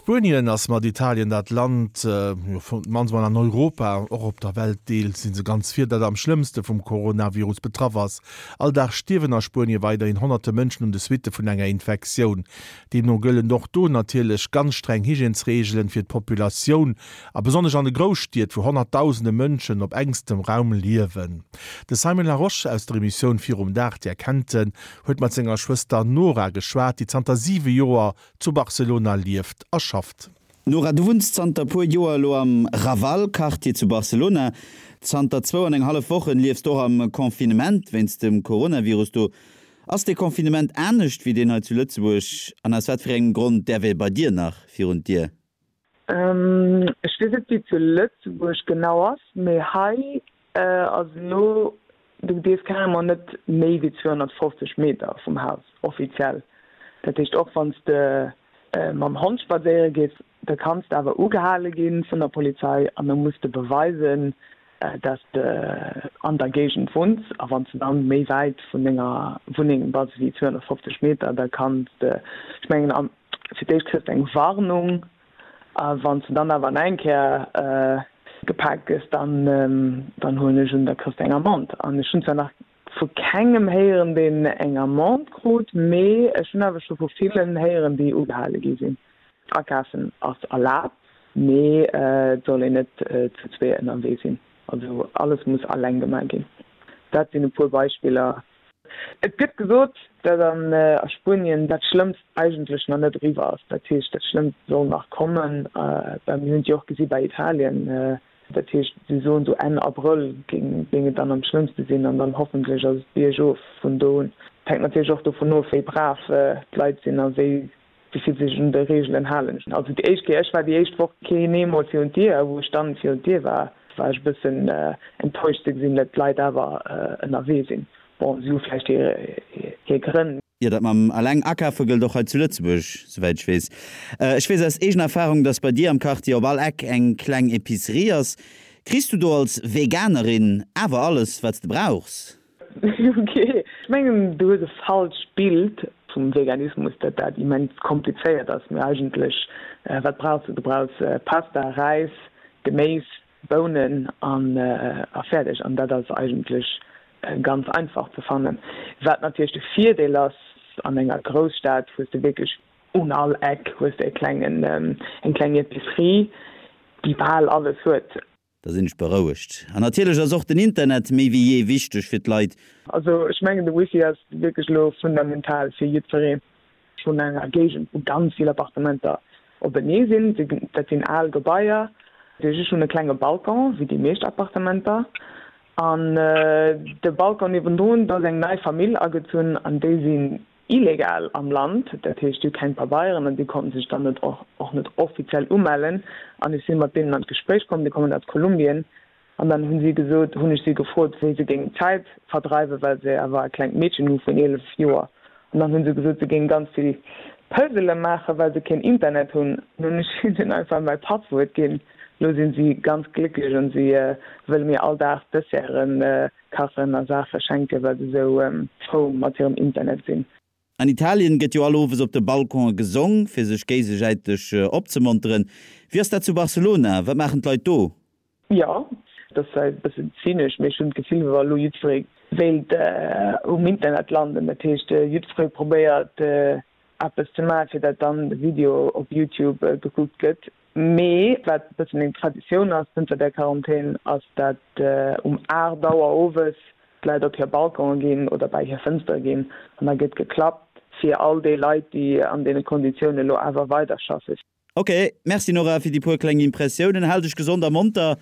Spuenien ass mat Italien dat Land, jo d'mannst mol an Europa, och op der Welt deels si se ganz vir, dat am schlëmmste vum Coronavirus betraff ass. All Dag stierwen a Spuenie weiderhin honnerte Mënschen un de Suitte vun enger Infektioun. Deemno gëllen och do natierlech ganz streng Hygiènesreegelen fir d'Populatioun, a besonnesch an de Grousstied, wou honnertdausende Mënschen op engstem Raum liewen. De Simon Larosche aus der Emissioun Virum Dag, Dir kennt en, huet mat senger Schwëster Nora geschwat, déi zanter 7 Joer zu Barcelona lieft a schafft. Nora, du wunns zanter puer Joer elo am Raval-Quartier zu Barcelona. Zanter zwou an eng hallef Wochen liefs de och am Confinement wéinst dem Coronavirus do. Ass dee Confinement anescht wéi deen hei zu Lëtzebuerg an aus wat fir engem Grond däerf ee bei dir nach virun d'Dier? Ech weess net wéi et zu Lëtzebuerg genau ass, mee hei ass elo, du dierfs carrément net méi wéi 250 Meter vum Haus, offiziell. Dat heescht och wann s de mam Hond spadséiere gees, da kanns de awer ugehale gi vun der Polizei an da muss de beweisen, dass de an der Géigend wunns. A wann s de dann méi wäit vun denger Wunneng bass wéi 250 Meter, da kanns de, ech mengen, fir d'éischt kriss de eng Warnung a wann s de dann awer nach eng Kéier gepaakt gëss, dann dann huelen ech un, da kriss de eng Amende. An ech hunn zwar nach vu kengem héieren, deen eng Amende krut, mee ech hunn awer scho vu villen héieren, déi ugehale gi sinn. Akafen ass erlaabt, mee et soll een net zu zwee ënnerwee sinn. Also alles muss alleng gemaach ginn. Dat sinn e puer Beispiller. Et gëtt gesot, datt a Spuenien dat Schlëmmst eigentlech nach net eriwwer ass. Dat heescht, dat Schlëmmst soll nach kommen. Mir hunn et jo och gesi bei Italien. Dat heescht, si soen esou Enn Abrëll géing et dann am schlëmmste sinn an dann hoffentlech ass et biergof vun do un. Et hänkt natierlech och dovun of, wéi brav d'Leit sinn a wéi wéi vill sech un de Reegelen halen. Also déi éischt Kéier, ech war déi éischt Woch keen eemol virun d'Dier a wou ech dann virun d'Dier war, war ech e bëssen enttäuscht ze gesinn, datt d'Leit awer ënnerwee sinn. Bon, si hu vläicht hir Grënn. Jo, dat mam eleng akafe gëllt och hei zu Lëtzebuerg, souwäit ech weess. Ech weess aus eegener Erfarung, dass bei dir am Quartier op all Eck eng kleng Epicerie ass. Kriss du do als Veganerin awer alles, wat s de brauchs? Ok, ech mengen du hues e falscht Bild vum Veganismus, dat dat immens komplizéiert ass. Mee eigentlech, wat brauchs du? Du brauchs Pasta, Räis, Geméis, Bounen an a fäerdeg. An dat ass eigentlech ganz einfach ze fannen. Wat natierlech de Virdeel ass, an enger Grousstad hues de wierklech un all Eck hues de e klengen, eng kleng Epicerie, déi bal alles huet. Da sinn ech berouegt. An natierlech ass och den Internet méi wéi jee wichteg fir d'Leit. Also ech mengen de Wifi ass wierklech elo fundamental fir jiddweree. Vun enger Géigend, wou ganz vill Appartementer openee sinn. Dat sinn al Gebaier. Ech hunn e klenge Balcon, wéi déi meescht Appartementer. An de Balcon niewendrun, do ass eng nei Famill agezunn an déi sinn illegal am Land. Dat heescht, déi hu keng Pabeieren an déi konnten sech dann net och net offiziell umellen. An ech si mat deenen an d'Gespréich komm, déi kommen aus Kolumbien. An dann hunn si gesot, hunn ech si gefrot, wéi se géingen d'Zäit verdreiwen, well se awer e klengt Meedchen hu vun 11 Joer. An dann hu se gesot, se géinge ganz vill Puzzele maachen, well se keen Internet hunn. An hunn ech hinnen einfach mäi Passwuert ginn. Elo sinn si ganz glécklech an si wëlle mir all Dag Desserten kachen a Saache schenken, well se esou frou mat hirem Internet sinn. An Italien gëtt jo all Owes op de Balconen gesong, fir sech géigesäiteg opzemonteren. Wéi ass dat zu Barcelona? Wat maachen d'Leit do? Jo, et ass zwar e bëssen zynesch, mee ech hunn d'Gefill, wéi wa elo jiddweree wéilt um Internet landen. Dat heescht, jiddweree probéiert eppes ze maachen, fir dat dann de Video op Youtube gekuckt gëtt. Mee wat e bëssen eng Traditioun ass zënter der Quarantän, ass dat um 8 Auer owes d'Leit op hir Balconen ginn oder bäi hir Fënstere ginn an da gëtt geklappt fir all déi Leit, déi an deene Konditiounen elo awer weiderschaffen. Ok, merci Nora fir déi puer kleng Impressiounen. Hal dech gesond a monter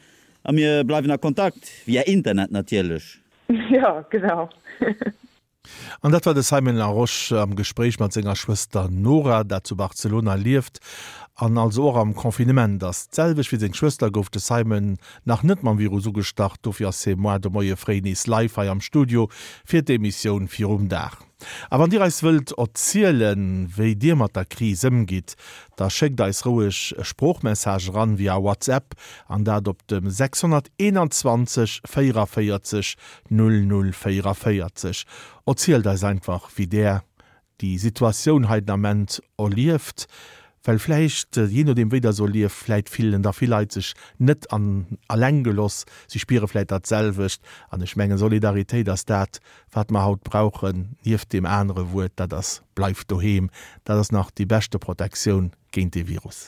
a mir bleiwen a Kontakt, via Internet natierlech. Jo, genau. An dat war de Simon Larosche am Gespréich mat senger Schwëster Nora, dat zu Barcelona lieft an also och am Confinement ass. D'selwecht wéi seng Schwëster gouf de Simon nach net mam Virus ugestach, dofir ass hie moar de Moie fréi nees live hei am Studio fir d'Emissioun Virum Dag. A wann Dir eis wëllt erzielen, wéi Dir mat der Kris ëmgitt, da schéckt eis roueg e Sproochmessage eran via WhatsApp an dat op dem 621 44 00 44. Erzielt eis einfach, wéi Där déi Situatioun hei den Ament erlieft. Well vläicht, jee nodeem wéi der so lieft, vläit fillen da vill Leit sech net an alleng geloss, si spiere vläit dat selwecht. An ech mengen, Solidaritéit ass dat, wat mer haut brauchen, nieft deem anere Wuert, dat ass, Bleift doheem! Dat ass nach déi beschte Protektioun géint dee Virus.